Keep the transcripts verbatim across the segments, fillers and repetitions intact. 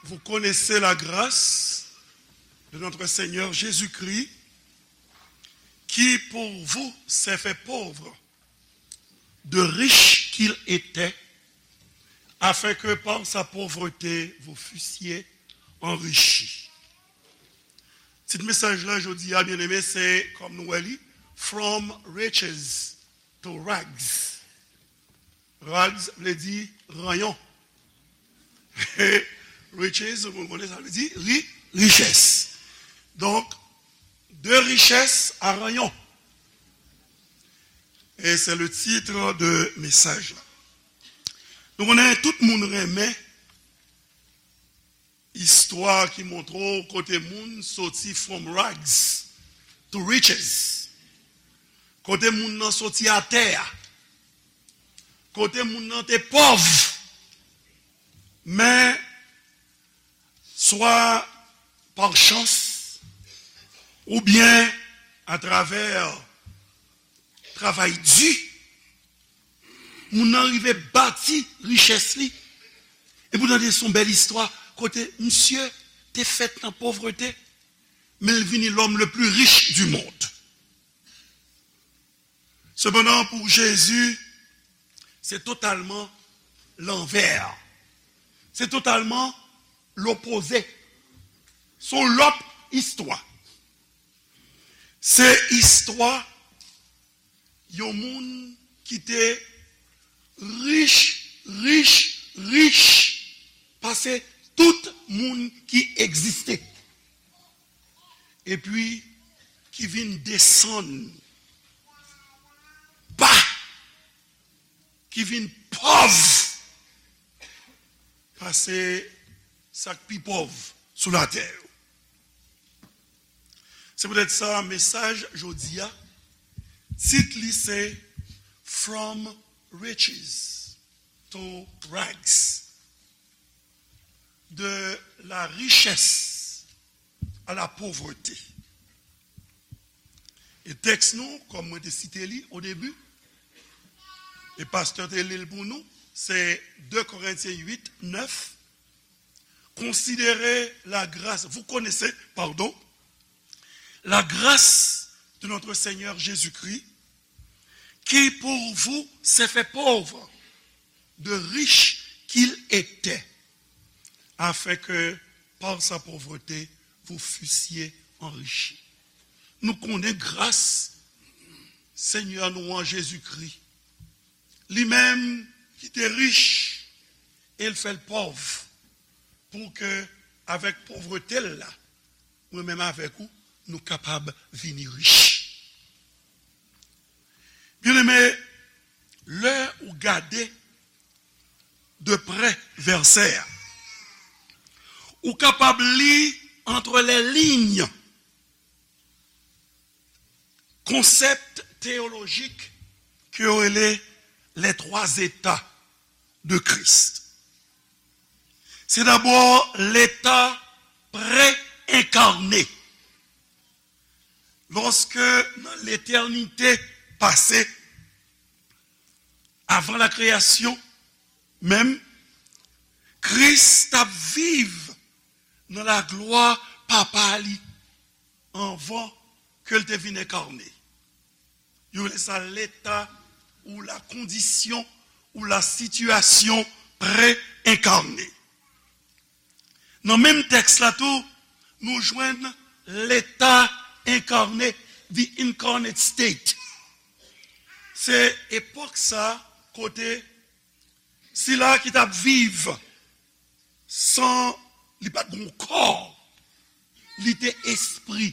Vous connaissez la grâce de notre Seigneur Jésus-Christ, qui pour vous s'est fait pauvre, de riche qu'il était, afin que par sa pauvreté vous fussiez enrichis. Tit mesaj la jodi a, byeneme, se, kòm nou wè li, From Riches to Rags. Rags vle di ranyon. Riches, nou konnen sa vle di ri, richès. Donk, de richès a ranyon. E se le titre de mesaj la. Nou konnen tout moun renmen istwa ki montre w kote moun soti from rags to riches. Kote moun nan soti atè a. Kote moun nan te pòv. Men, swa pa chans, oubyen atravè travay di, moun nan rive bati richès li. Epi w tande se yon bèl istwa kote misye te fèt nan povrete, men l vini l'homme le plus riche du monde. Sepandan, pou Jezi, se totalman lanvè. Se totalman lopoze. Se yon lòt istwa. Se istwa yon moun ki te rich, rich, rich pase tout moun ki egziste. Epi ki vin desann ba, ki vin pòv pase sa k pi pòv sou latè yo. Se poutèt sa, mesaj jodi a, tit li se From Riches to Rags. De la richesse à la pauvreté. E tèks nou, kòm mwen te site li o debi, e pastè te li l pou nou, se de Korentyen uit, nèf. Considérez la grâce, vous connaissez, pardon, la grâce de notre Seigneur Jésus-Christ, qui pour vous s'est fait pauvre, de riche qu'il était, afin que par sa pauvreté vous fussiez enrichis. Nou konnen gras Senyè nou an Jezikri. Li menm ki te rich e l fè l pòv, pou ke avèk povrete l la, mwen menm avèk ou, nou kapab vini rich. Byeneme, lè ou gade de prè vèsè a, ou kapab li entre les lignes konsèp teyolojik ke yo rele les trois états de Christ. Se dabò leta pre-enkane. Lòske nan letènite pase, avan la kreyasyon menm, Kris t ap viv nan laglwa Papa li anvan ke l te vin enkane. Yo rele sa leta ou la kondisyon ou la sitiyasyon pre-enkane. Nan menm tèks la tou, nou jwenn leta enkane, the incarnate state. Se epòk sa kote sila ki t ap viv san li pa t gen kò, li te espri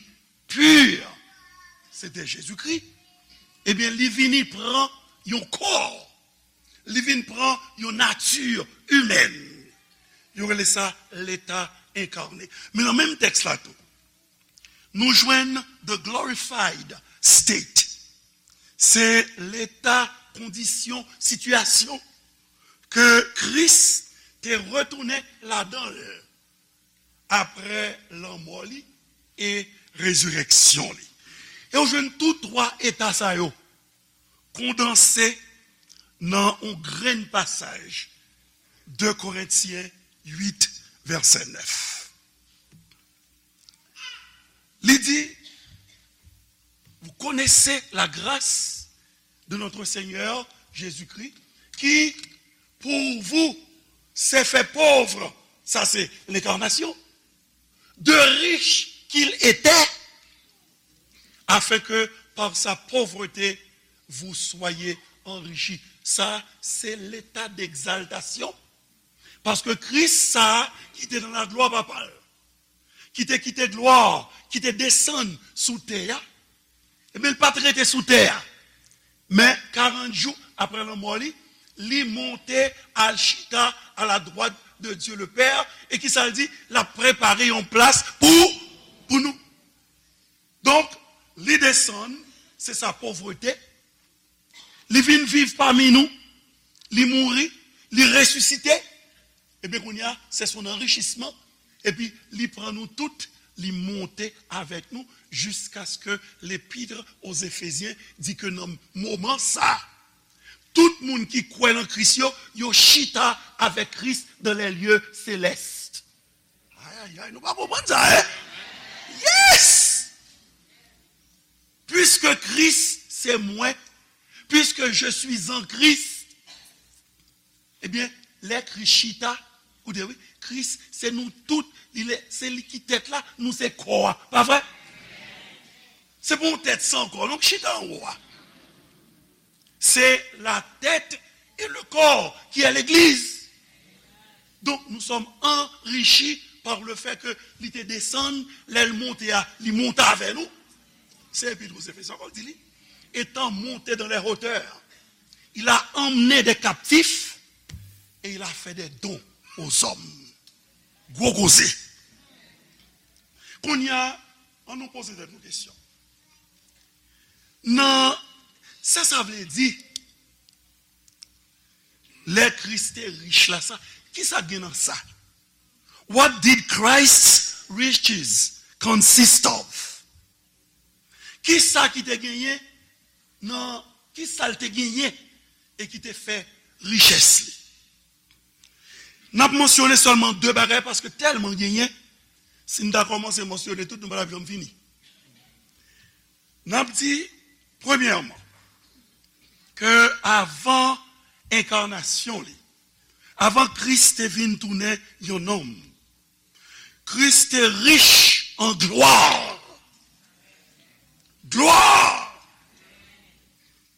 pi, se te Jezikri, ebyen, li vini pran yon kò, li vin pran yon nati imèn. Yo rele sa leta enkane. Men nan menm tèks la tou, nou jwenn the glorified state. Se leta, kondisyon, sitiyasyon ke Kris te retounen ladan l apre lanmò li e rezirèksyon li. E w jwenn tou twa eta sa yo kondanse nan yon grenn pasaj, de Korentyen uit, vèsè nèf. Li di, vous connaissez la grâce de notre Seigneur Jésus-Christ, qui, pour vous, s'est fait pauvre, ça c'est l'incarnation, de riche qu'il était, afin que par sa pauvreté, vous soyez enrichis. Sa, se leta d'egzaltasyon. Paske Kris sa a ki te nan laglwa Papa l, ki te kite glwa, ki te desann sou tè a, ebyen, l pa t rete sou tè a. Men, karant jou apre lanmò li, li monte al chita à la droite de Dieu le Père, e ki sa l di? L ap prepare yon plas pou, pou nou. Donk, li desann, se sa povrete. Li vin viv pami nou, li mouri, li resisite. Ebyen, kounye a, se son anrichisman. Epi, li pran nou tout, li monte avèk nou, jiskaske L'Épître aux Éphésiens di ke nan moman sa, tout moun ki kwè nan Kris yo, yo chita avèk Kris dans les lieux célestes. Ay, ay, ay, nou pa konprann sa, en? Yes! Puisque Christ, c'est moi, puisque je suis en Christ, ebyen, lè Kris chita, koute wi, Kris, se nou tout, li lè, se li ki tèt la, nou se kò a. Pa vre? Se pa yon tèt san kò, non, k chita anwo a. C'est la tête et le corps qui est l'église. Donc, nous sommes enrichis par le fait que li te desann, lè l monte a, li monte avè nou. Se Epître aux Éphésiens ankò l di li. Étant monté dans les hauteurs, il a emmené des captifs et il a fait des dons aux hommes. Gwo koze. Kounye a, ann nou poze tèt nou kesyon. Nan sa sa vle di, lè Kris te rich la, sa, ki sa gen nan sa? What did Christ's riches consist of? Ki sa ki te genyen nan, ki sa l te genyen e ki te fè richès li? N ap mansyone sèlman de bagay paske tèlman genyen, si n ta kòmanse mansyone tout, nou pa t ap janm fini. N ap di, premyèman, ke avan enkanasyon li, avan Kris te vin tounen yon nonm, Kris te rich an glwa. Glwa!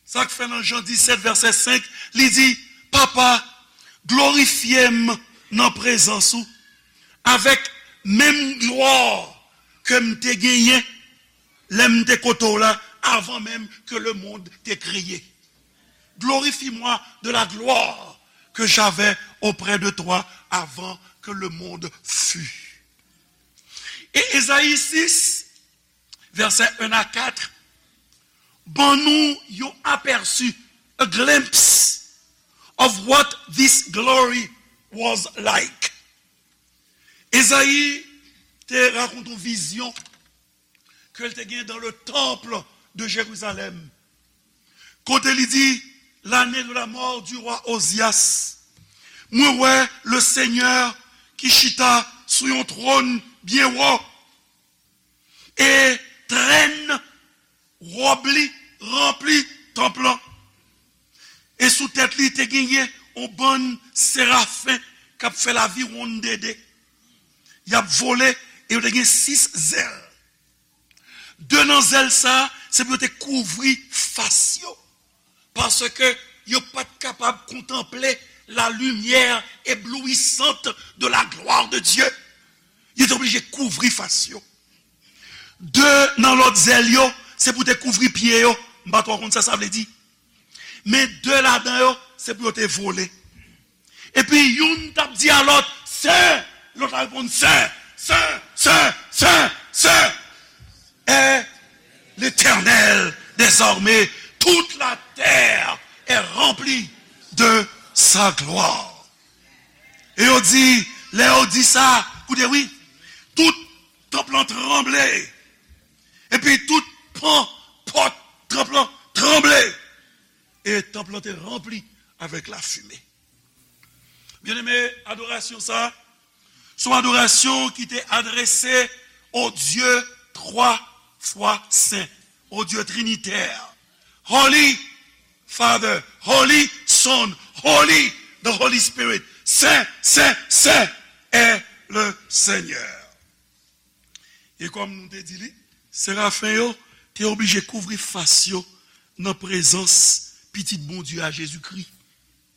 Sa k fè nan Jan disèt vèsè senk, li di, Papa, glorifye m nan prezans ou avèk menm glwa ke m te genyen lè m te kote w la, avan menm ke le monde te kreye. Glorifie-moi de la gloire que j'avais auprès de toi avant que le monde fût. E Ezayi sis, vèsè en a kat, ban nou yon apèsi, a glimpse of what this glory was like. Ezayi te rakonte yon vizyon ke l te gen dans le temple de Jérusalem. Kote li di, l'année de la mort du roi Ozias, mwen wè le Senyè ki chita sou yon twòn byen wo, e trèn wòb li ranpli tanp lan. E sou tèt li te genyen yon bann serafen k ap fè laviwonn de de. Y ap vole e yo te gen sis zèl. De nan zèl sa a, se pou yo te kouvri fas yo, paske yo pa t kapab kontanple la lumière éblouissante de la gloire de Dieu. Yo te oblije kouvri fas yo. De nan lòt zèl yo, se pou te kouvri pye yo. M pa twò konn sa sa vle di. Men de ladan yo, se pou yo te vole. Epi youn t ap di a lòt, Sen! Lòt la reponn, Sen, sen, sen, sen, sen est l'Éternel des armées. Toute la terre est remplie de sa gloire. E yo di, lè yo di sa, koute wi, tout tanp lan tranble. Epi tout pan pòt tanp lan tranble. E tanp lan te ranpli avèk lafime. Byeneme, adorasyon sa, Se yon adorasyon ki te adrese au Dieu trois fois saint, au Dieu trinitaire. Holy Father, Holy Son, Holy, the Holy Spirit. Saint, saint, saint est le Seigneur. E kòm nou te di li, serafen yo te oblije kouvri fas yo nan prezans Pitit Bondye a, Jezikri.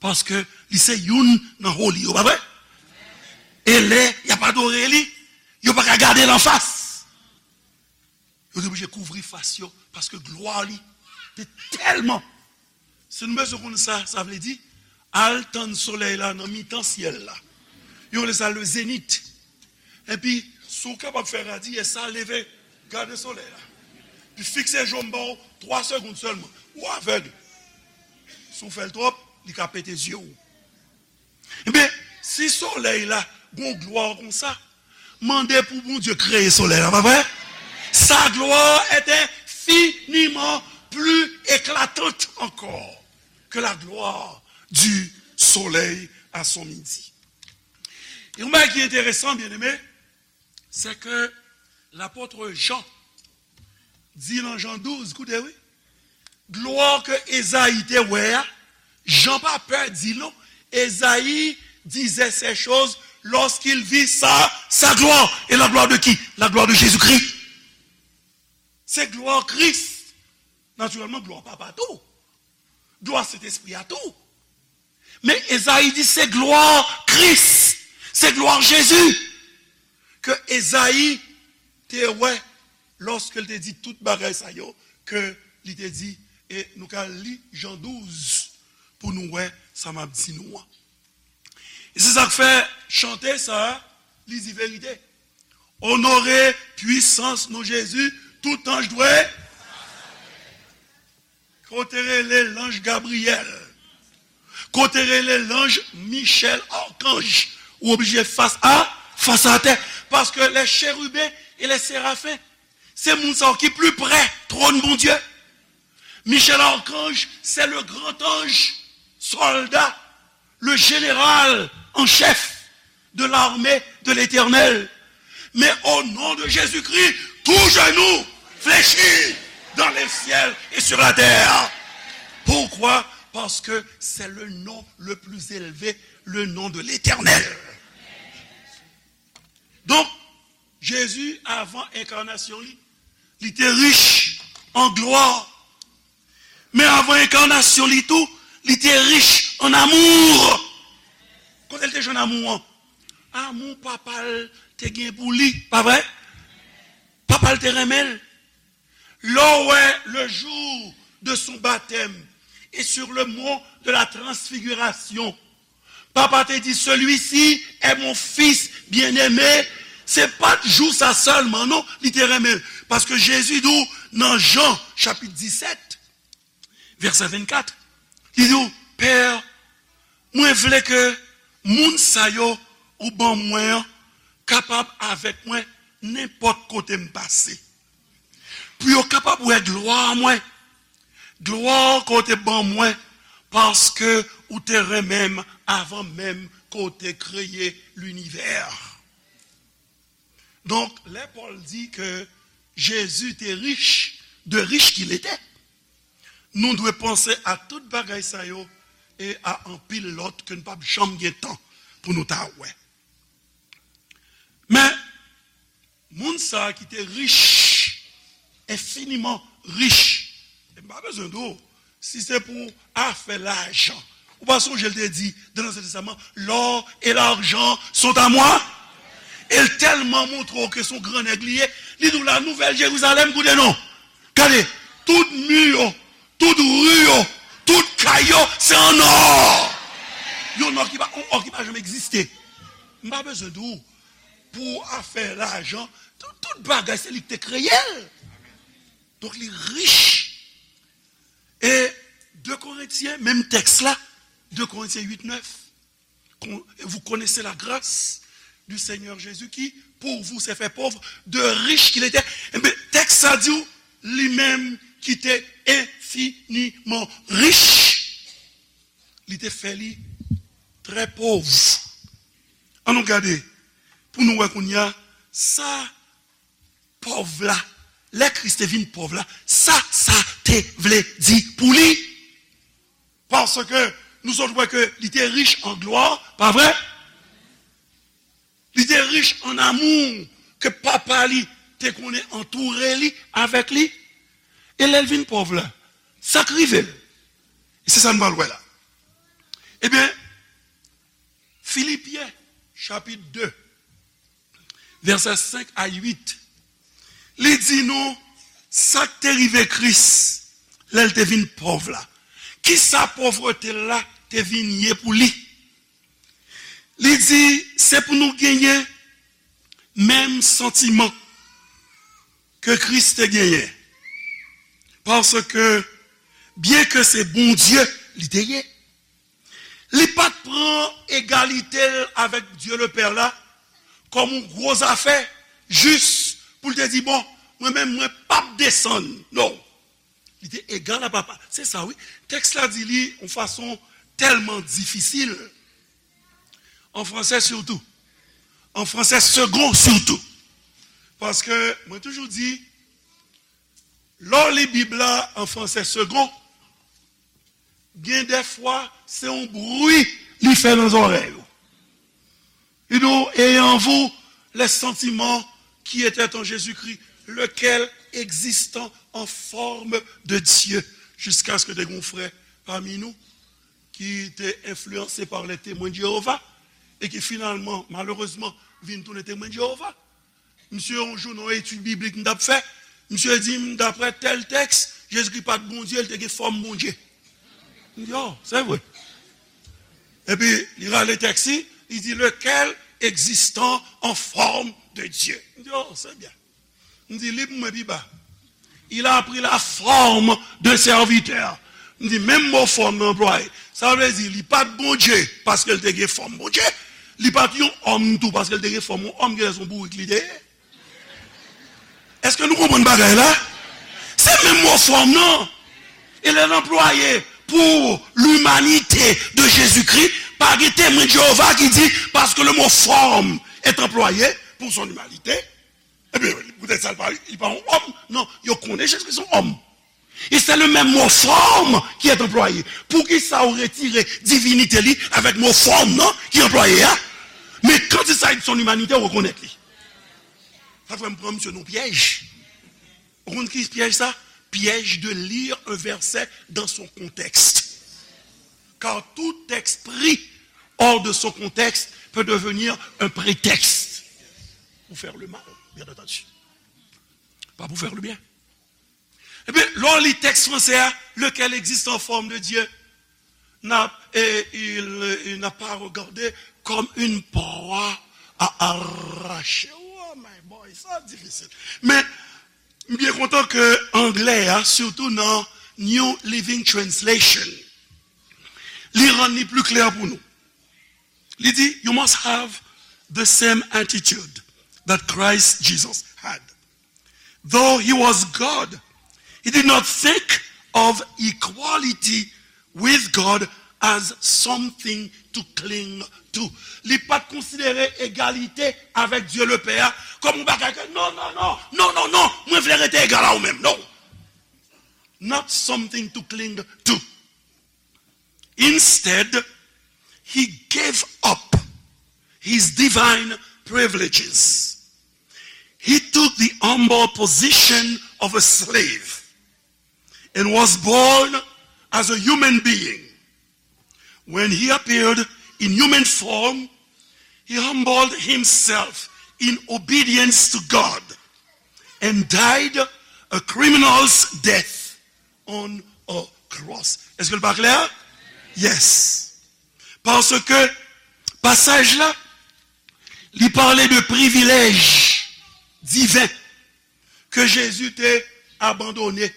Paske li se youn nan holy yo, pa vre? E lè y ap adore li, yo pa ka gade l anfas. Yo te oblije kouvri fas yo, paske glwa li te tèlman. Si nou bezwen konn sa, sa vle di, al tann solèy la nan mitan syèl la. Yo rele sa le zénith. Epi, si w kapab fè radiyès sa, leve, gade solèy la. Epi fikse je w, m ba w twa segonn sèlman. Ou avèg. Si w fè l twòp, li ka pete zye w. Ebyen, si solèy la gon glwa konsa, mande pou Bondye kreye solèy la, pa vre? Sa gloire est infiniment plus éclatante encore que la gloire du soleil à son midi. E yon bagay ki enteresan, byeneme, c'est que l'apôtre Jean di nan Jan douz, koute wi, glwa ke Ezayi te wè a, Jan pa pè di l non, Ezayi disait ces choses lorsqu'il vit sa, sa gloire. Et la gloire de qui? La gloire de Jésus-Christ. Se glwa Kris. Natirèlman, glwa Papa tou. Glwa Sentespri a tou. Men Ezayi di se glwa Kris, se glwa Jezi ke Ezayi te wè lòske l te di tout bagay sa yo ke li te di. E nou ka li Jan douz pou nou wè sa m ap di nou an. E se sa k fè chante sa a, li di verite. Onore pwisans non Jezi, tout anj dwe. Kote rele lanj Gabriyèl? Kote rele lanj Michèl Akanj? Ou oblije fas a, fas atè. Paske les chérubins et les séraphins, se moun sa yo ki pli prè twòn Bondye. Michel Archange, c'est le grand ange, soldat, le général en chef de l'armée de l'Éternel. Mais au nom de Jésus-Christ, tout genou fléchit dans les ciels et sur la terre. Pourquoi? Parce que c'est le nom le plus élevé, le nom de l'Éternel. Donk, Jezi, avan enkanasyon li, li te rich an glwa. Men avan enkanasyon li tou, li te rich an amou. Kote l te jwenn amou an? Amou papa l te gen pou li, pa vre? Papa l te renmen l. Lè w wè le jour de son baptême et sur le mont de la transfiguration, Papa te di, celui-ci est mon fils bien-aimé. Se pa t jou sa sèlman, non, li te renmen l. Paske Jezi di w nan Jan, chapit disèt, vèsè vennkat, li di w, Pè, mwen vle ke moun sa yo ou ban mwen an kapab avèk mwen nenpòt kote m pase. Pou yo kapab wè glwa mwen. Glwa ke w te ban mwen, paske ou te renmen m avan menm ke w te kreye linivè. Donk, lè Pòl di ke Jezi te rich, de riche qu'il était, nou dwe panse a tout bagay sa yo e a anpil lòt ke n p ap janm gen tan pou nou ta wè. Men, moun sa a ki te rich, enfiniman rich, e m pa bezwen di w, si se pou afè lajan, ou pa sonje l te di, dans l'Ancien Testament, l'or et l'argent sont à moi? E l tèlman montre w ke se yon gran nèg li ye, li di w la Nouvèl Jerizalèm, koute non. Gade, tout mi yo, tout ri yo, tout kay yo, se an ò. Yon ò ki pa, yon ò ki pa janm egziste. M pa bezwen di w, pou afè lajan, tout, tout bagay, se li ki te kreye l. Donk, li rich. E de Korentyen, menm tèks la, de Korentyen uit nèf, Con- et vous connaissez la grâce du Seigneur Jésus qui, pour vous, s'est fait pauvre, de riche qu'il était. Ebyen, tèks sa di w, li menm ki te enfiniman rich, li te fè li trè pòv. Ann nou gade, pou nou wè kounye a, sa pòv la, lè Kris te vin pòv la, sa sa te vle di pou li. Paske nou sot wè ke li te rich an glwa, pa vre? Li te rich an amou ke papa li te konnen antoure li, avèk li. E lè l vin pòv la, sa k rive l? E se sa n pral wè la. Ebyen, Filipyen, chapit de, vèsè senk a uit, li di nou sa k te rive Kris lè l te vin pòv la. Kisa pòvrete l la te vin ye pou li? Li di, se pou nou genyen menm santiman ke Kris te genyen. Paske, byenke se Bondye li te ye, li pa t pran egalite l avèk Dye Lepè la kòm yon gwo zafè, jis pou l te di, bon, mwen menm, mwen p ap desann. Non. Li te egal a papa. Se sa, wi. Tèks la di li yon fason tèlman difisil. An fransè sitou. An fransè segon sitou. Paske mwen toujou di, lè w li Bib la an fransè segon, gen dèfwa se yon bri li fè nan zòrèy ou. Li di w, ayez en vous les sentiments qui étaient en Jésus-Christ, lequel, existant en forme de Dieu, jusqu'à ce que te gen yon frè pami nou ki te enfliyanse pa les Témoins de Jéhovah e ki finalman, malerezman, vin tounen Temwen de Jewova. Misye, yon jou, nan yon etid biblik m t ap fè, misye di m, daprè tèl tèks, Jezikri pa t Bondye, li te gen fòm Bondye. M di, oh, c'est vrai. Epi, li rale tèks li, li di, lequel existant en forme de Dieu. M di, oh, c'est bien. M di, li pou mwen pi ba. Il a pris la forme de serviteur. M di, menm mo fòm nan anplwaye. Sa vle di, li pa t Bondye, paske l te gen fòm Bondye. Li pa t yon òm tou, paske l te gen fòm yon òm, genlè se yon bourik li te ye. Èske nou konprann bagay la? Se menm mo fòm nan. E lè l anplwaye pour l'humanité de Jésus-Christ, pa gen Temwen de Jewova ki di, parce que le mot forme est employé pour son humanité, ebyen, poutèt sa, li pa, li pa yon òm. Non, yo konnen Jezikri se yon òm. E se le menm mo fòm ki est anplwaye. Poukisa ou retire divinite li avèk mo fòm nan ki anplwaye a? Men quand il s'agit de son humanité, ou rekonèt li. Sa fè m pran misye nan pyèj. Ou konn ki pyèj sa? Piège de lire un verset dans son contexte. Car tout texte pris hors de son contexte peut devenir un prétexte pour faire le mal, bien entendu. Pas pour faire le bien. Ebyen, lè w li tèks fransè a, lequel existe en forme de Dieu, n'a, et il, il n'a pas regardé comme une proie à arracher. Oh my boy, sa difisil. Men, m byen kontan ke anglè a, sitou nan New Living Translation, li rann li pli klè pou nou. Li di, you must have the same attitude that Christ Jesus had. Though he was God, he did not think of equality with God as something to cling to. Li pa t konsidere egalite avèk Dye Lepè a kòm yon bagay ke, non, non, non, non, non, non, mwen vle rete egal a ou menm. Non. Not something to cling to. Instead, he gave up his divine privileges. He took the humble position of a slave and was born as a human being. When he appeared in human form, he humbled himself in obedience to God and died a criminal's death on a cross. Èske l pa klè? Yes. Paske pasaj la, li pale de privilèj diven ke Jezi te abandone.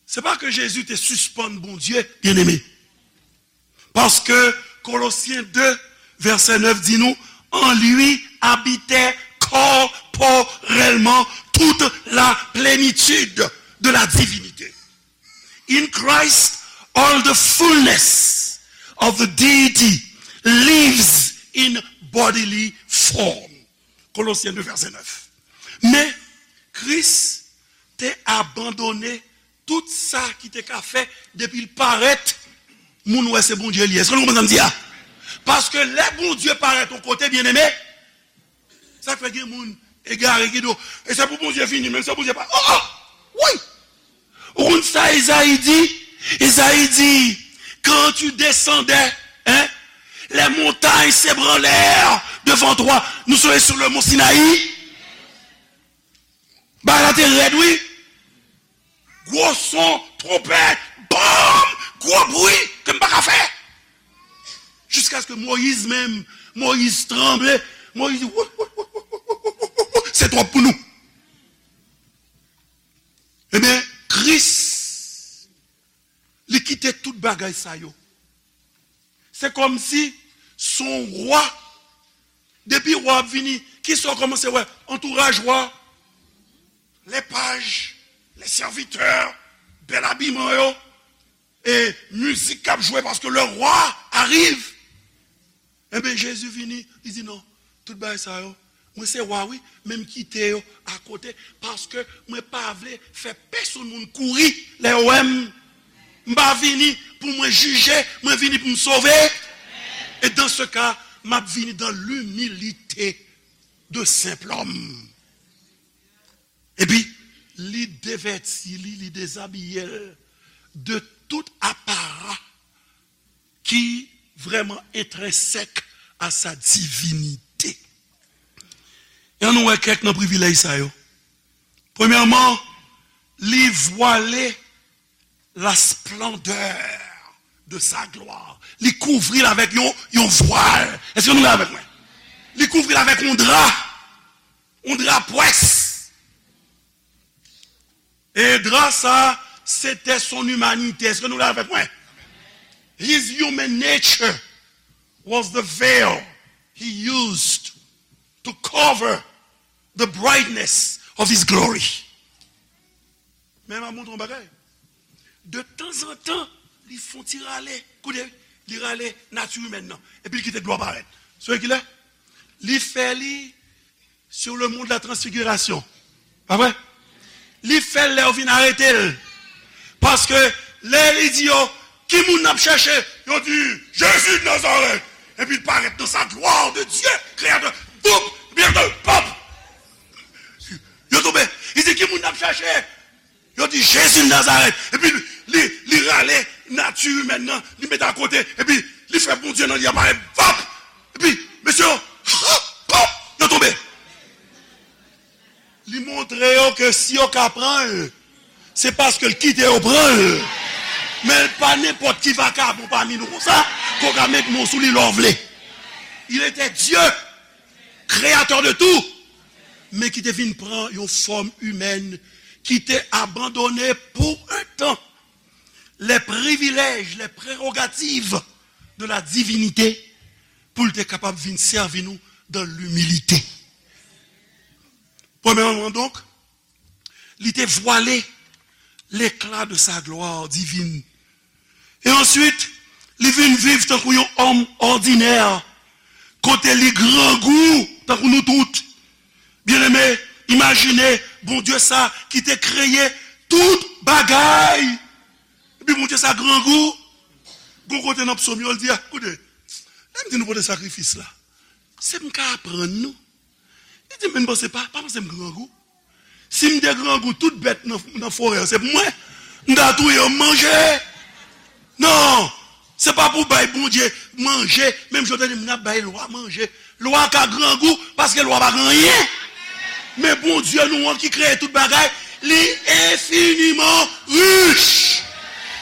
Se pa ke Jezi te sispann Bondye, byeneme. Paske Kolosyen de, vèsè nèf di nou, en lui habitait corporellement toute la plénitude de la divinité. In Christ, all the fullness of the deity lives in bodily form. Colossiens deux, verset neuf. Men, Kris te abandone tout sa ki te ka fè depi l parèt, moun wè se Bondye li ye. Èske nou konprann sa m di a? Paske lè Bondye parèt yon kote, byeneme, sa k fè gen moun egare ki di w, e se pou Bondye vini, menm se Bondye pa. Oh, oh! Wi! Ou konn sa Ezayi di? Ezayi di, quand tu descendais, hein, les montagnes s'ébranlèrent devant toi. Nou sot sur le mont Sinaï. Bagay la te rèd, wi. Gwo son, twonpèt, bòm, gwo bri ke m pa ka fè. Jiskaske Moyiz menm, Moyiz tranble. Moyiz di, "Wou, wou, wou, wou, wou, wou, wou, wou, se twòp pou nou." Ebyen, Kris, li kite tout bagay sa yo. Se kòmsi se yon wa. Depi wa ap vini, kisa w kòmanse wè? Antouraj wa. Les pages, les serviteurs, bèl abiman yo, e mizik k ap jwe, paske le roi arrive. Ebyen, Jezi vini, li di, "Non, tout bagay sa yo, mwen se wa, wi, men m kite yo akote, paske mwen pa vle fè pèsonn moun kouri lè yo wè m. M pa vini pou mwen jije, mwen vini pou m sove. Et dans ce cas, m ap vini dans l'humilité de simple homme." Epi, li devèti li, li dezabiye l de tout apara ki vrèman entrensèk a sa divinite. E ann nou wè kèk nan privilèj sa yo. Premyèman, li vwale la splendeur de sa gloire. Li kouvri l avèk yon, yon vwal. Èske nou la avèk mwen? Li kouvri l avèk yon dra. Yon dra pwès. E dra sa, se te son imanite. Èske nou la avèk mwen? His human nature was the veil he used to cover the brightness of his glory. Men m ap montre yon bagay. De tanzantan, li fè yon ti rale. Koute, li rale nati imèn nan. Epi li kite glwa parèt. Sou kilè? Li fè li sur le mont de la transfiguration. Pa vre? Li fè l lè yo vin arete l. Paske lè li di yo, "Ki moun n ap chèche?" Yo di, "Jezi de Nazarèt." Epi l parèt dans sa gloire de Dieu, créateur. Boum! Byen de pop! Yo tonbe. Li di, "Ki moun n ap chèche?" Yo di, "Jezi de Nazarèt." Epi li, li rale nati imèn nan, li mete akote, epi li fè Bondye nan li a parèt. Vap! Epi, mesye yo, hop, hop, yo tonbe. Li montre yo ke si yo ka pran l, se paske l kite yo pran l. Men l pa nenpòt ki vakabon pami nou konsa, ke w ka met mo sou li lè w vle. Il était Dieu, créateur de tout, men ki te vin pran yon fòm imèn, ki te abandone pou un tan les privilèges, les prérogatives de la divinité, pou l te kapab vin sèvi nou dans l'humilité. Premyèman, donk, li te vwale l'éclat de sa gloire divine. E answit, li vin viv tankou yon òm òdinè, kote li grangou tankou nou tout. Byeneme, imajine Bondye sa ki te kreye tout bagay. Epi Bondye sa grangou. Gon kote nan psòm yo, l di, "A, koute, lè m di nou pote sakrifis la, se m ka aprann nou." Li di, "Men m panse pa, pa panse m grangou. Si m te grangou, tout bèt nan, nan forè an, se pou mwen. M ta touye yo, m manje." Non, se pa pou bay Bondye manje, menm jan w te di m ap bay lwa manje. Lwa ka grangou, paske lwa pa gen anyen. Men Bondye nou an ki kreye tout bagay, li enfiniman rich.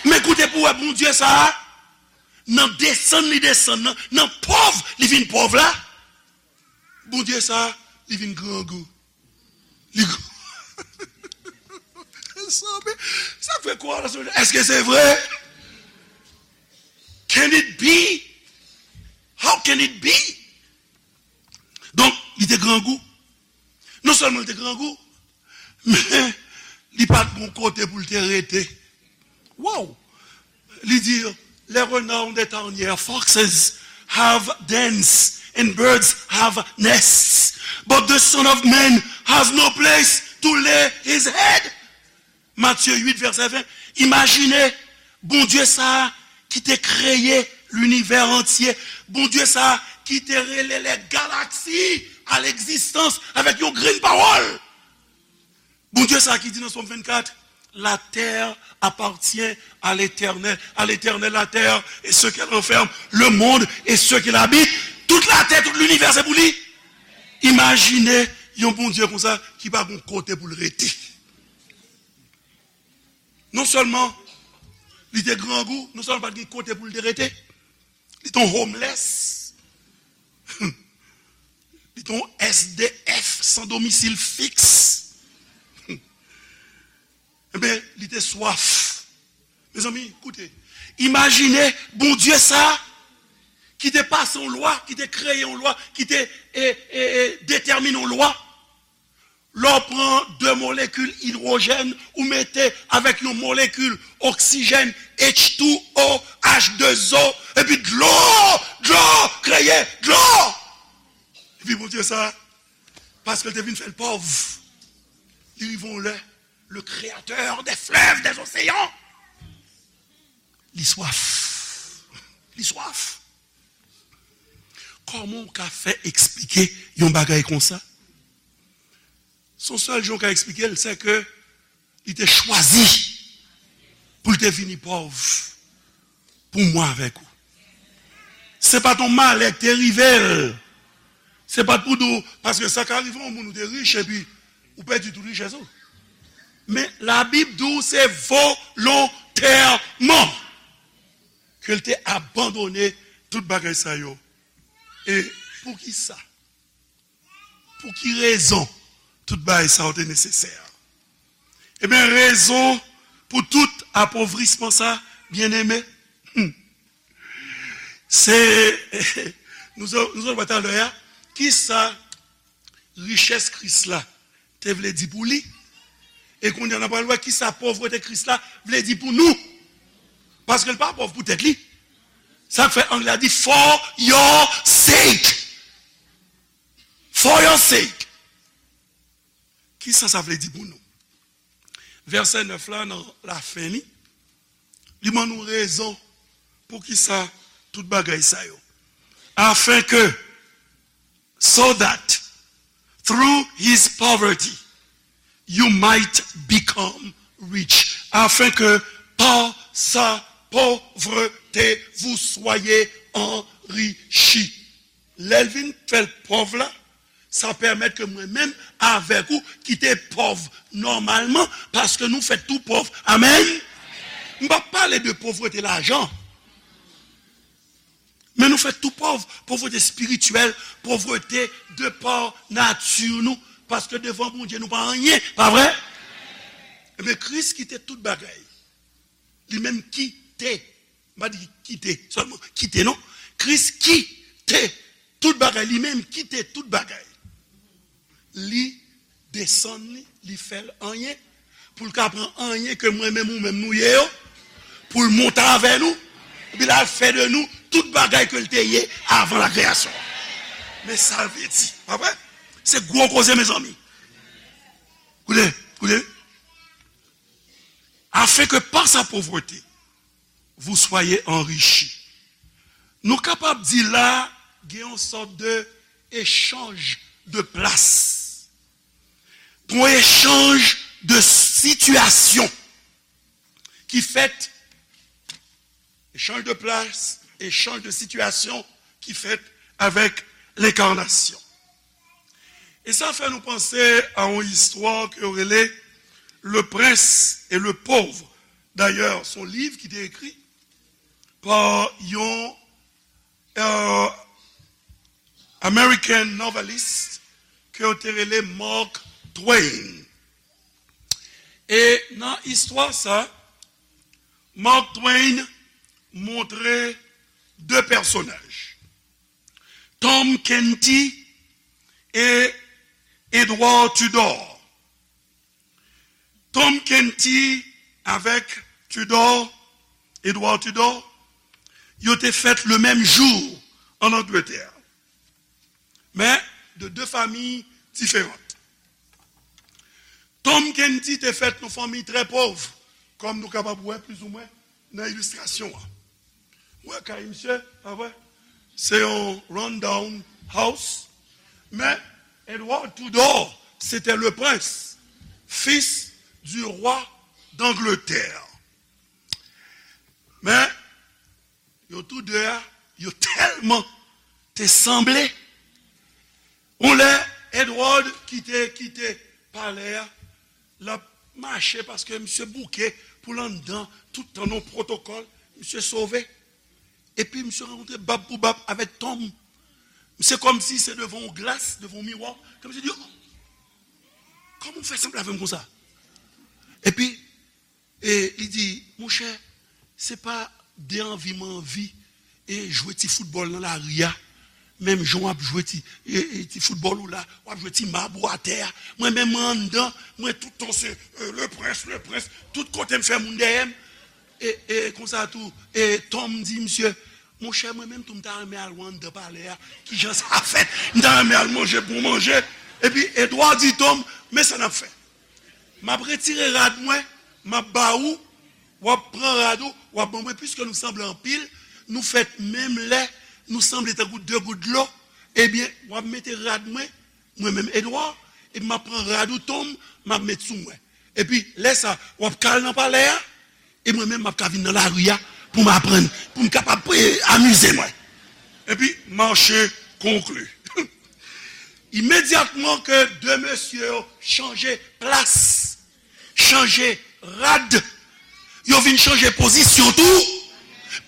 Men koute pou w wè Bondye sa a, nan desann li desann nan, nan pòv li vin pòv la, Bondye sa a, li vin grangou. Li gr- Sanble, sa fè kwa la, èske se vre? Can it be? How can it be? Donk, li te grangou. Non sèlman li te grangou, men li pa t gon kote pou l te rete. Wow! Li di, "Les renards ont des tanières, foxes have dens and birds have nests, but the Son of Man has no place to lay his head. Matye uit, vèsè ven. Imajine Bondye sa a ki te kreye linivè antye, Bondye sa a ki te rele lè galaksi a legzistans avèk yon grenn pawòl. Bondye sa a ki di nan Sòm vennkat, la terre appartient à l'Éternel, à l'Éternel la terre et ce qu'elle renferme, le monde et ceux qui l'habitent. Tout latè, tout linivè, se pou li. Imajine yon Bondye konsa ki pa gen kote pou l rete. Non sèlman li te grangou, non sèlman pa t gen kote pou l te rete, li te yon homeless, li te yon S D F, sans domicile fixe. Ebyen, li te swaf. Mezanmi, koute. Imajine Bondye sa a ki te pase yon lwa, ki te kreye yon lwa, ki te e, e, e, detèmine yon lwa. Lè w pran de molekil idwojèn, ou mete avèk yon molekil oksijèn, H two O, H deux O, epi dlo, dlo, kreye dlo. Epi Bondye sa, paske l te vin fè l pòv, li rive yon lè, le créateur des fleuves, des océans, li swaf. Li swaf. Kòman w ka fè eksplike yon bagay konsa? Se yon sèl jan w ka eksplike l, se ke li te chwazi pou l te vini pòv pou mwen avèk ou. Se pa t yon malè k te rive l. Se pa t pou di w, paske sa ka rive yon moun ou te rich epi ou pèdi tout richès ou. Men Labib di w se volontèman ke l te abandone tout bagay sa yo. E poukisa? Pou ki rezon tout bagay sa yo te nesesè? Ebyen, rezon pou tout apovrisman sa, byeneme, hmm, se, nou sot, nou sot wè talè a, kisa richès Kris la te vle di pou li? E kounye a, n ap pral wè kisa povrete Kris la vle di pou nou. Paske l pa pòv pou tèt li. Sa k fè anglè a di for your sake. For your sake. Kisa sa vle di pou nou? Vèsè nèf la, nan lafen li, li ban nou rezon poukisa tout bagay sa yo. Afin que, so that, through his poverty, you might become rich. Afin que, par sa pauvreté, vous soyez enrichis. Lè l vin fè l pòv la, sa pèmèt ke mwen menm avèk ou ki te pòv nòmalman, paske nou fèt tou pòv. Amèn. M p ap pale de povrete lajan. Men nou fèt tou pòv, povrete espirityèl, povrete de pa nati nou, paske devan Bondye nou pa anyen, pa vre? Ebyen, Kris kite tout bagay. Li menm kite, m pa di kite sèlman, kite non. Kris kite tout bagay, li menm kite tout bagay. Li desann li, li fè l anyen, pou l ka pran anyen ke mwen menm ou menm nou ye yo, pou l monte avè nou, epi l al fè de nou tout bagay ke l te ye avan la kreyasyon. Men sa l vle di, pa vre? Se gwo koze, mezanmi. Koute, koute. Afin que par sa pauvreté, vous soyez enrichis. Nou kapab di la, gen yon sòt de echanj de plas. Gen yon echanj de sitiyasyon ki fèt, echanj de plas, echanj de sitiyasyon ki fèt avèk lenkarnasyon. E sa fè nou panse a yon istwa ke yo rele Le Prince et le Pauvre. Dayè, se yon liv ki te ekri pa yon, euh, American novelist ke yo te rele Mark Twain. E nan istwa sa, Mark Twain montre de pèsonaj, Tom Canty e Edward Tudor. Tom Canty avèk Tudor, Edward Tudor, yo te fèt le menm jou an Angletè. Men de de fanmi diferan. Tom Canty te fèt nan fanmi trè pòv, kòm nou kapab wè plizoumwen nan ilistrasyon an. Wè kay misye, pa vre? Se yon rundown house. Men Edward Tudor, c'était le prince, fils du roi d'Angleterre. Men yo tou de a, yo tèlman te sanble. Yon lè, Edward kite, kite palè a, l ap mache paske misye bouke pou l anndan, tout tan nan pwotokòl, misye sove. Epi misye rankontre bab pou bab avèk Tom. Misye kòmsi se devan yon glas, devan yon miwa, ke misye di, "Oh, kòman w fè sanble avè m konsa?" Epi e li di, "Monchè, se pa de anvi mwen anvi e jwe ti foutbòl nan lari a, menm jan w ap jwe ti, e, e, ti foutbòl ou la, w ap jwe ti mab ou atè a. Mwen menm, mwen anndan, mwen tout tan se, e, le prince, le prince, tout kote m fè moun dèyè m." E, e konsa tou, e Tom di misye, "Monchè, mwen menm tou, m ta renmen al wè anndan palè a, kijan sa fèt, m ta renmen al manje bon manje." Epi Edward di Tom, "Men sa n ap fè. M ap retire rad mwen, m ap ba ou, w ap pran rad ou, w ap ban mwen, piske nou sanble anpil, nou fèt menm lè, nou sanble tankou de gout dlo, ebyen, w ap mete rad mwen, mwen menm Edward, epi m ap pran rad ou Tom, m ap met sou mwen. Epi, lè sa, w ap ka al nan palè a, e mwen menm, m ap ka vin nan lari a pou m aprann, pou m kapab, e, amize mwen." Epi, mache konkli. Imedyatman ke de mesye yo chanje plas, chanje rad, yo vin chanje pozisyon tou,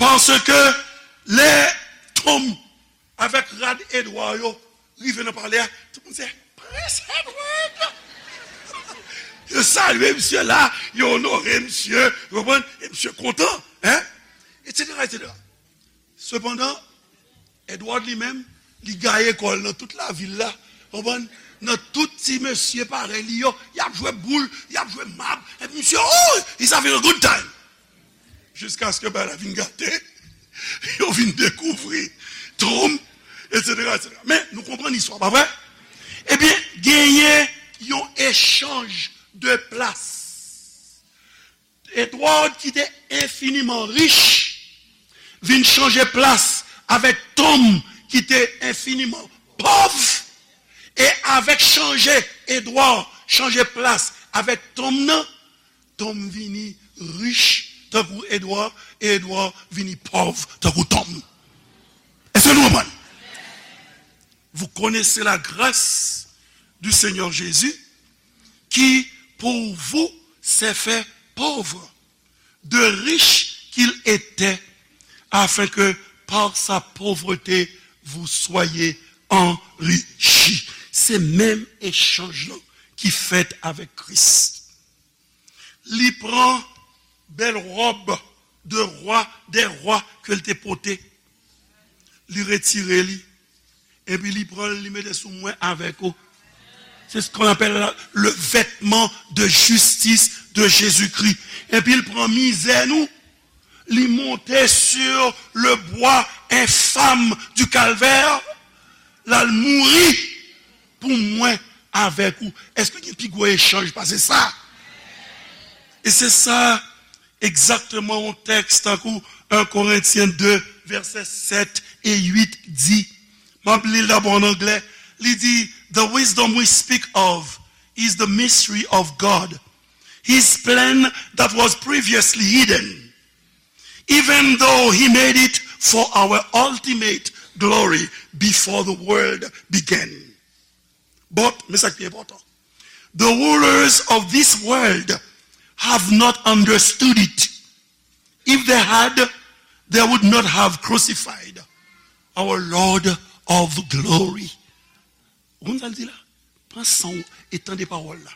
paske lè Tom avèk rad Edward yo rive nan palè a, tout moun se, "Prens Edward!" Yo salye misye la, yo onore misye, ou konprann? E misye kontan, en? Etsetera, etsetera. Sepandan, Edward li menm, li gaye kò l nan tout lavil la, ou konprann? Nan tout ti mesye parèy li yo, y ap jwe boul, y ap jwe mab, epi misye, oh, he's having a good time. Jiskaske bagay la vin gate, yo vin dekouvri Tom, etsetera, etsetera. Men, nou konprann istwa, pa vre? Ebyen, genyen yon echanj de plas. Edward, ki te enfiniman rich, vin chanje plas avèk Tom, ki te enfiniman pòv. E avèk chanje Edward, chanje plas avèk Tom nan, Tom vini rich tankou Edward, e Edward vini pòv tankou Tom. Èske nou konprann? Vous connaissez la grâce du Seigneur Jésus, qui pour vous s'est fait pauvre, de riche qu'il était, afin que par sa pauvreté vous soyez enrichis. Se menm echanj lan ki fèt avèk Kris. Li pran bèl wòb de rwa dè rwa ke l te pote. Li retire li. Epi li pran l, li mete sou mwen avèk ou. C'est ce qu'on appelle le vêtement de justice de Jésus-Christ. Epi l pran mizè nou, li monte sur le bois infâme du calvaire, l al mouri pou mwen avèk ou. Èske gen pi gwo echanj pase sa? E se sa egzakteman yon tèks tankou un Corinthiens deux, vèsè sèt e uit di. M ap li l dabò an anglè. Li di, "The wisdom we speak of is the mystery of God, his plan that was previously hidden, even though he made it for our ultimate glory before the world began." But, men sa ki pi enpòtan, "The rulers of this world have not understood it. If they had, they would not have crucified our Lord of glory." Ou konn sa l di la? Pran san w e tande pawòl la.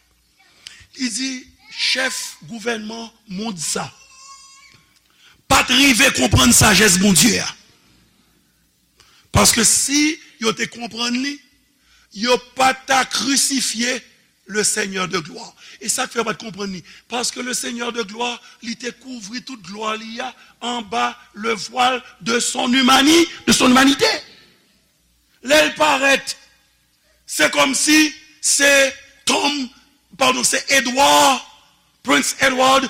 Li di, chèf gouvènman mond sa pa t rive konprann sajès Bondye a. Paske si yo te konprann li, yo pa ta krisifye le Seigneur de gloire. E sa k fè yo pa t konprann li. Paske le Seigneur de gloire, li te kouvri tout glwa li a anba le voile de son humani-, de son humanité. Lè l parèt Se kòmsi se Tom, padon, se Edward, Prince Edward,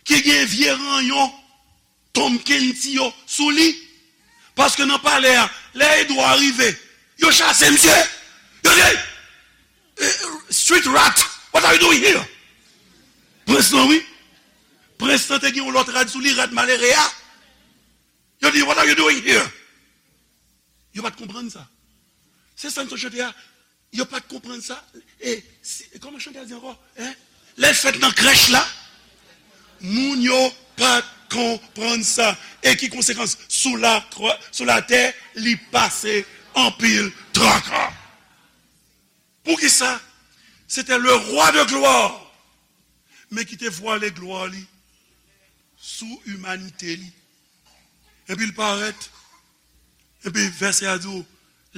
ki gen vye ranyon Tom Kenty yo sou li. Paske nan palè a, lè Edward rive, yo chase misye. Yo di, "Eh, street rat, what are you doing here?" Prens lan, wi. Prens lan te gen yon lòt rad sou li, rad malere a. Yo di, "What are you doing here?" Yo pa t konprann sa. Se sa n t ap chante a. Yo pa t konprann sa. E, si, kòman chante a di ankò? Hein? Lè l fèt nan krèch la, moun yo pa t konprann sa. E ki konsekans? Sou la krwa, sou latè, li pase anpil traka. Poukisa? Se te le roi de gloire, men ki te vwale glwa li sou imanite li. Epi l parèt, epi vèsè a di w,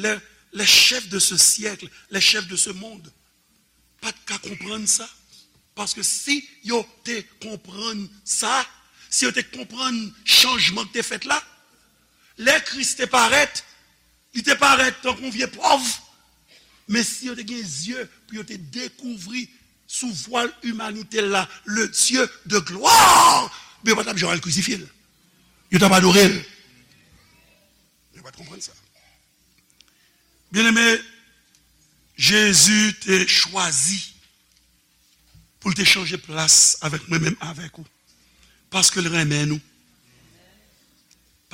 les, les chefs de ce siècle, les chefs de ce monde, pa t ka konprann sa. Paske si yo te konprann sa, si yo te konprann chanjman ki te fèt la, lè Kris te parèt, li te parèt tankou yon vye pòv. Men si yo te gen zye pou yo te dekouvri sou vwal imanite l la, le Dieu de gloire, men yo pa t ap janm al krisifye l. Yo t ap adore l. Yo pa t konprann sa. Byeneme, Jezi te chwazi pou l te chanje plas avèk mwen menm avèk ou. Paske l renmen nou.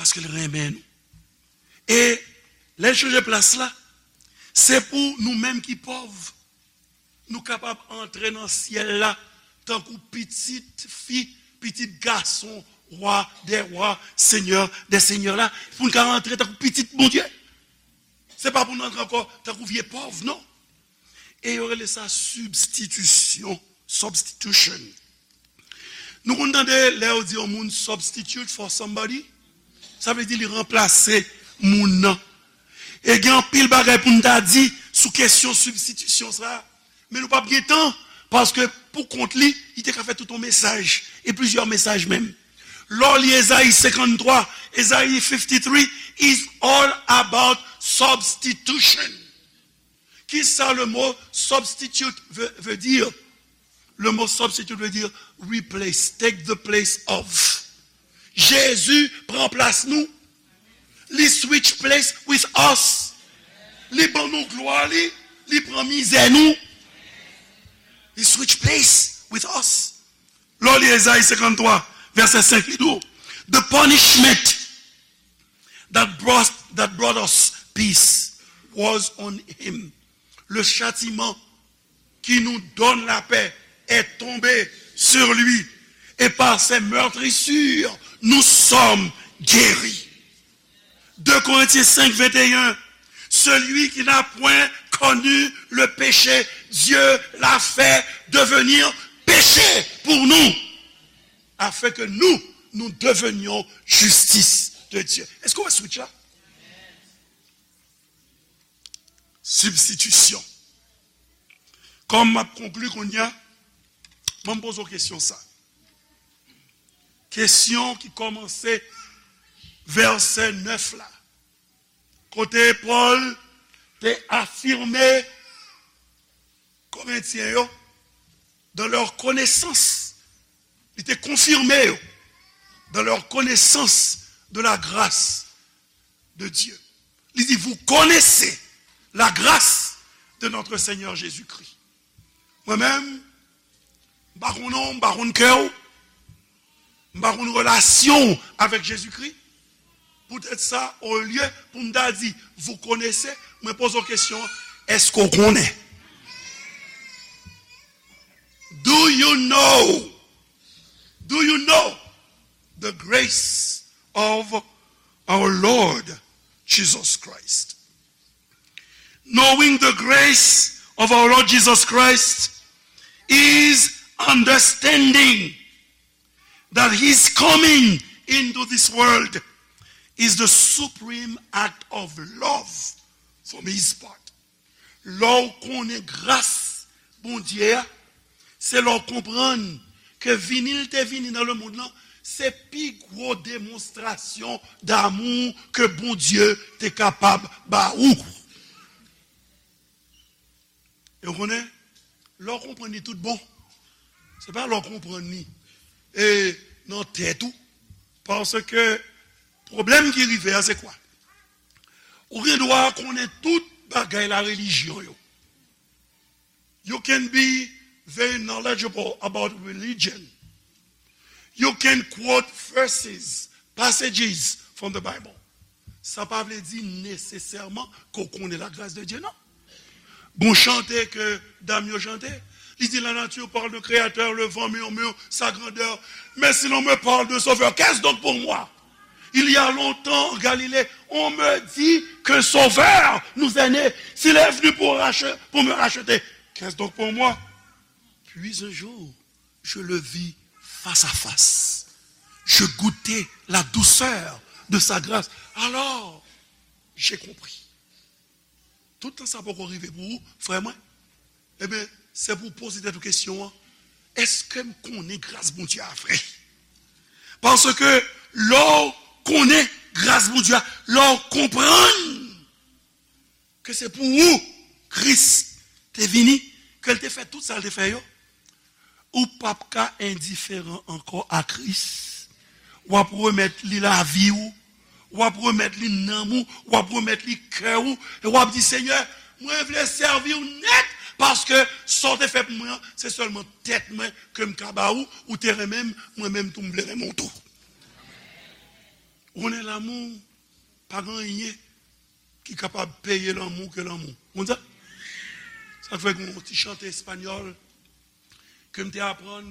Paske l renmen nou. E lè l chanje plas la, se pou nou menm ki pòv, nou kapab antre nan syèl la tankou pitit fi, pitit gason, wa dè wa, senyè dè senyè la, pou n ka antre tankou pitit Bondye. Se pa pou n antre ankò tankou vye pòv, non. E yo rele sa sibstitisyon, substitution. Nou konn tande lè yo di yon moun substitute for somebody, sa vle di li ranplase moun nan. E gen anpil bagay pou n ta di sou kesyon sibstitisyon sa, men nou p ap gen tan, paske pou kont li, li te ka fè tout yon mesaj, e plizyè mesaj menm. Lè w li Ezayi senkanntwa, Ezayi fifty-three is all about substitution. Kisa le mot substitute veut, veut dire? Le mot substitute veut dire replace, take the place of. Jezi pran plas nou. Li switch place with us. Li ban nou glwa li. Li pran mizè nou. He switch place with us. Lè w li Ezayi senkanntwa, vèsè senk, li di w, the punishment that brought, that brought us peace was on him. Le châtiment qui nous donne la paix est tombé sur lui, et par ses meurtrissures, nous sommes guéris. Deux Corinthiens cinq, vingt et un, celui qui n'a point connu le péché, Dieu l'a fait devenir péché pour nous, afin que nous, nous devenions justice de Dieu. Èske w wè switch la? Sibstitisyon. Kòm m ap konkli kounye a, ban m poze w kesyon sa. Kesyon ki kòmanse vèsè nèf la, kote Pòl te afime Korentyen yo, dans leur connaissance, li te konfime yo, dans leur connaissance de la grâce de Dieu. Li di, vous connaissez la grâce de notre Seigneur Jésus-Christ. Mwen menm, m pa konn non, m pa konn kè w, m pa konn relasyon w avèk Jezikri. Poutèt sa, olye pou m ta di, vous connaissez, mwen poze w kesyon, èske w konnen? Do you know? Do you know the grace of our Lord Jesus Christ? Knowing the grace of our Lord Jesus Christ is understanding that his coming into this world is the supreme act of love from his part. Lè w konnen gras Bondye a, se lè w konprann ke vini l te vini nan lemonn lan, se pi gwo demonstrasyon damou ke Bondye te kapab ba ou. E w konnen, lè w konprann li tout bon, se pa lè w konprann li e nan tèt ou. Paske pwoblèm ki rive a, se kwa? Ou gen dwa konnen tout bagay la relijyon yo. You can be very knowledgeable about religion. You can quote verses, passages from the Bible. Sa pa vle di nesesèman ke w konnen la grâce de Dieu, non. Gon chante ke dam yo chante, li di, la nature parle de créateur, le vent murmure sa grandeur, mais si l'on me parle de sauveur, qu'est-ce donc pour moi? Il y a longtemps, en Galilée, on me dit qu'un sauveur nous est né. S'il est venu pour rache-, pour me racheter, qu'est-ce donc pour moi? Puis un jour, je le vis face à face. Je goûtai la douceur de sa grâce. Alors, j'ai compris. Tout tan sa poko rive pou ou, frè mwen, ebyen, se pou w poze tèt ou kesyon an, èske m konnen gras Bondye a vre? Paske lè w konnen gras Bondye a, lè w konprann ke se pou ou Kris te vini, ke l te fè tout sa l te fè yo, ou p ap ka endiferan ankò a Kris. W ap remèt li lavi w, w ap remèt li nanm ou, w ap remèt li kè ou, e w ap di, Senyè, mwen vle sèvi w nèt, paske sa w te fè pou mwen an, se sèlman tèt mwen ke m ka ba ou, ou te renmen m, mwen menm tou m vle renmen w tou. Ou konnen lanmou, pa gen anyen ki kapab peye lanmou ke lanmou. Ou konn sa? Sa k fè gen yon ti chante espanyòl ke m te aprann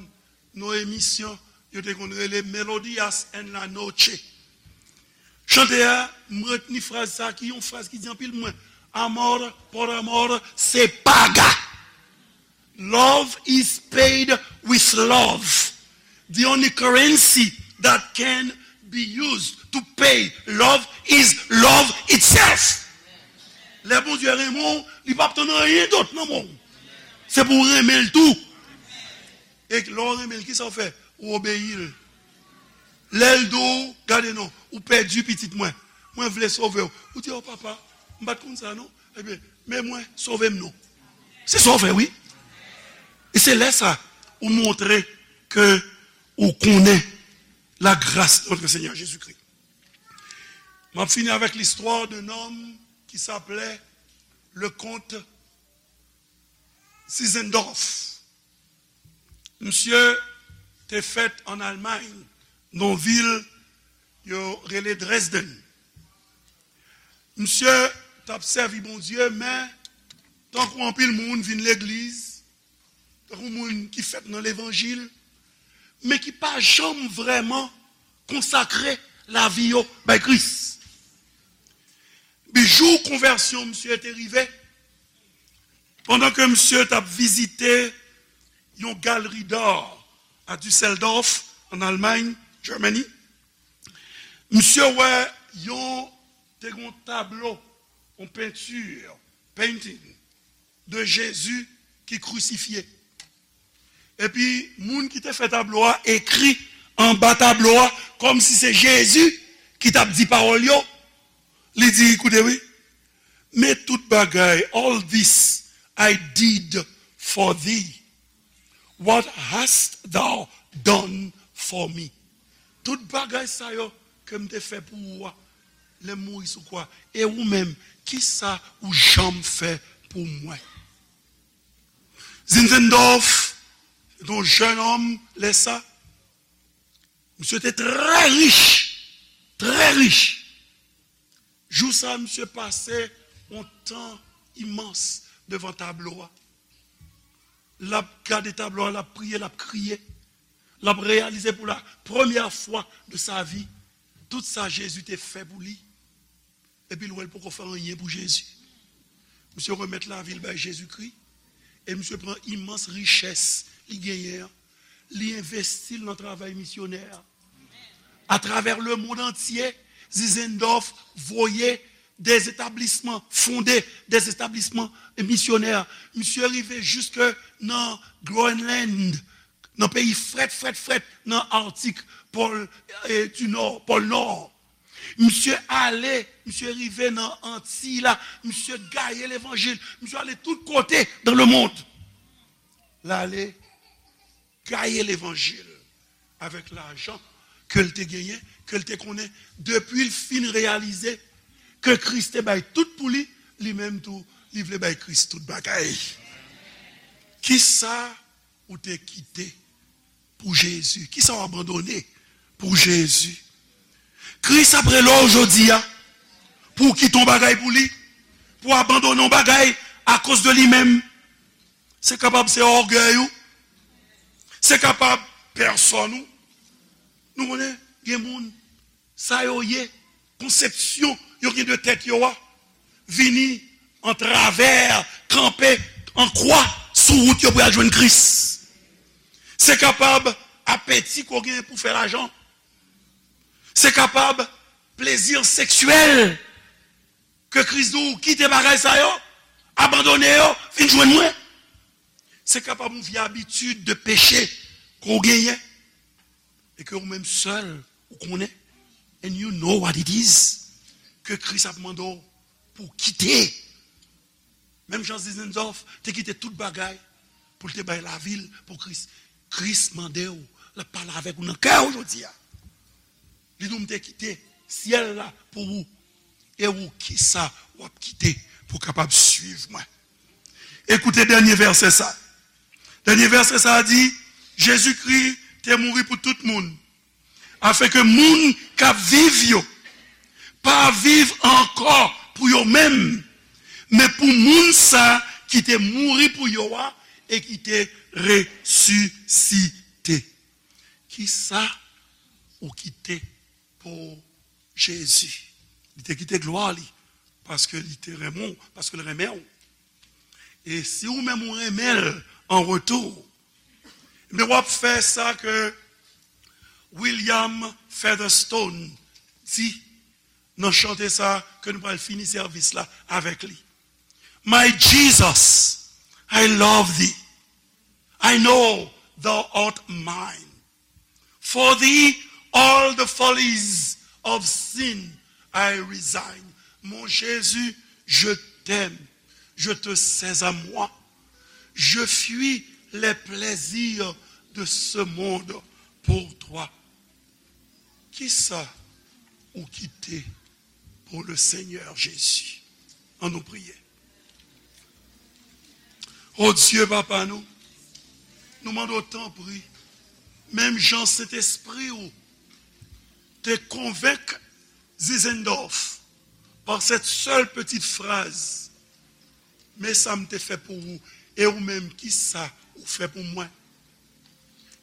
nan yon emisyon, yo te konn rele Melodías en la Noche. Chante a, m retni fraz sa ki yon fraz ki di anpil pou mwen. Amor por amor se paga. Love is paid with love. The only currency that can be used to pay love is love itself. Lè Bondye renmen w, li p ap tann anyen dòt nan men w. Se pou w renmen l tou. E lè w renmen l, kisa w fè? Ou obeyi l. Lè l di w, gade non, ou pèdi pitit mwen. Mwen vle sove w. Ou di, o papa, m pa t konn sa non. Ebyen, men mwen, sove m non. Se sa w fè, wi. E se lè sa, ou montre ke ou konnen la grâce de notre Seigneur Jésus-Christ. M ap fini avec l'histoire d'un homme qui s'appelait le comte Zinzendorf. Misye te fèt an Almay, nan vil yo rele Dresden. Misye t ap sèvi Bondye, men tankou anpil moun vin legliz, tankou moun ki fèt nan levanjil, men ki pa janm vrèman konsakre lavi yo bay Kris. Epi jou konvèsyon misye te rive, pandan ke misye t ap vizite yon galeri d'art à Düsseldorf, an Almay, Germany, misye wè yon, te gen yon tablo, yon penti, painting, de Jezi ki krisifye. Epi, moun ki te fè tablo a ekri anba tablo a, kòmsi se Jezi ki t ap di pawòl yo. Li di, koute wi, men tout bagay, all this I did for thee. What hast thou done for me? Tout bagay sa yo ke m te fè pou ou a, lè m mouri sou kwa. E ou menm, kisa ou janm fè pou mwen? Zinzendorf, se te yon jèn òm, lè sa, misye te trè rich, trè rich. Jou sa, misye pase yon tan imans devan tablo a. L ap gade tablo a, l ap priye, l ap kriye. L ap reyalize pou la premyè fwa de sa vi tout sa Jezi te fè pou li. Epi l wè l poko fè anyen pou Jezi. Misye remèt lavi l bay Jezikri. E misye pran imans richès li genyen an, li envesti l nan travay misyonè a. Atravè lemonn antye, Zinzendorf voye de etablisman, fonde de etablisman misyonè. Misye rive jiske nan Groenland, nan peyi frèt, frèt, frèt, nan Arctique, Pôle, eh, du Nord, Pôle Nord. Misye ale, misye rive nan Antiy la, misye gaye levanjil, misye ale tout kote dans le monde. L ale gaye levanjil avèk lajan ke l te genyen, ke l te konnen, depi l fin reyalize ke Kris te bay tout pou li, li menm tou, li vle bay Kris tout bagay. Kisa ou te kite pou Jezi? Kisa w abandone pou Jezi? Kris ap rele w jodi a pou w kite yon bagay pou li, pou w abandone yon bagay akoz de li menm. Se kapab se ògèy ou, se kapab pèsòn ou. Nou konnen, gen moun, sa yo ye, konsepsyon yo gen de tèt yo a, vini antravè, kanpe an kwa sou wout yo pou y al jwenn Kris. Se kapab apeti ke w gen pou fè lajan. Se kapab plezi seksyèl ke Kris di w kite bagay sa yo, abandone yo, vin jwenn mwen. Se kapab yon vye abitid de peche ke w genyen e ke ou menm sèl ou konnen, and you know what it is, ke Kris ap mande w pou w kite. Menm jan Zinzendorf te kite tout bagay pou l te bay lavi l pou Kris. Kris mande w, l ap pale avèk ou nan kè w jodi a. Li di w, "M te kite syèl la pou ou. E ou, kisa w ap kite pou w kapab swiv mwen?" Ekoute dènye vèsè sa. Dènye vèsè sa a di, Jezikri te mouri pou tout moun, afenke moun k ap viv yo pa viv ankò pou yo menm, men pou moun sa ki te mouri pou yo a e ki te resisite. Kisa ou kite pou Jezi? Li te kite glwa li paske li te renmen w, paske l renmen w. E si ou menm ou renmen l an retou, men w ap fè sa ke William Featherstone di nan chante sa ke nou pral fini sèvis la avèk li. My Jesus, I love thee. I know thou art mine. For thee all the follies of sin I resign. Mon Jésus, je t'aime, je te sais à moi. Je fuis les plaisirs de ce monde pour toi. Kisa ou kite pou le Seigneur Jésus? Ann nou priye. O Dye, Papa nou, nou mande w tanpri, menm jan Sentespri w te konvenk Zinzendorf par cette seule petite phrase, men sa m te fè pou ou, e ou menm, kisa ou fè pou mwen?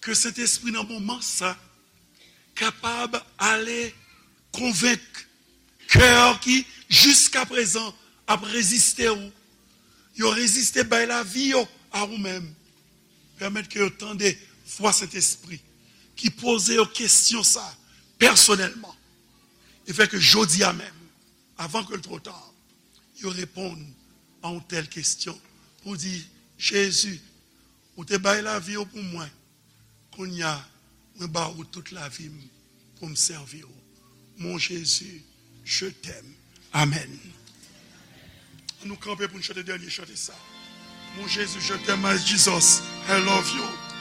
Ke Sentespri nan moman sa kapab ale konvenk kè ki jiskaprezan ap reziste w. Yo reziste bay lavi yo a ou menm. Pèmèt ke yo tande vwa Sentespri ki poze yo kesyon sa pèsonèlman. E fè ke jodi a menm, avan ke l twò ta, yo reponn a yon tèl kesyon pou di, Jezi, ou te bay lavi w pou mwen. Kounye a, mwen ba ou tout lavi m pou m sèvi w. Mon Jésus, je t'aime. Amèn. Ann nou kanpe pou n chante dènye chante sa. Mon Jésus, je t'aime, my Jesus, I love you.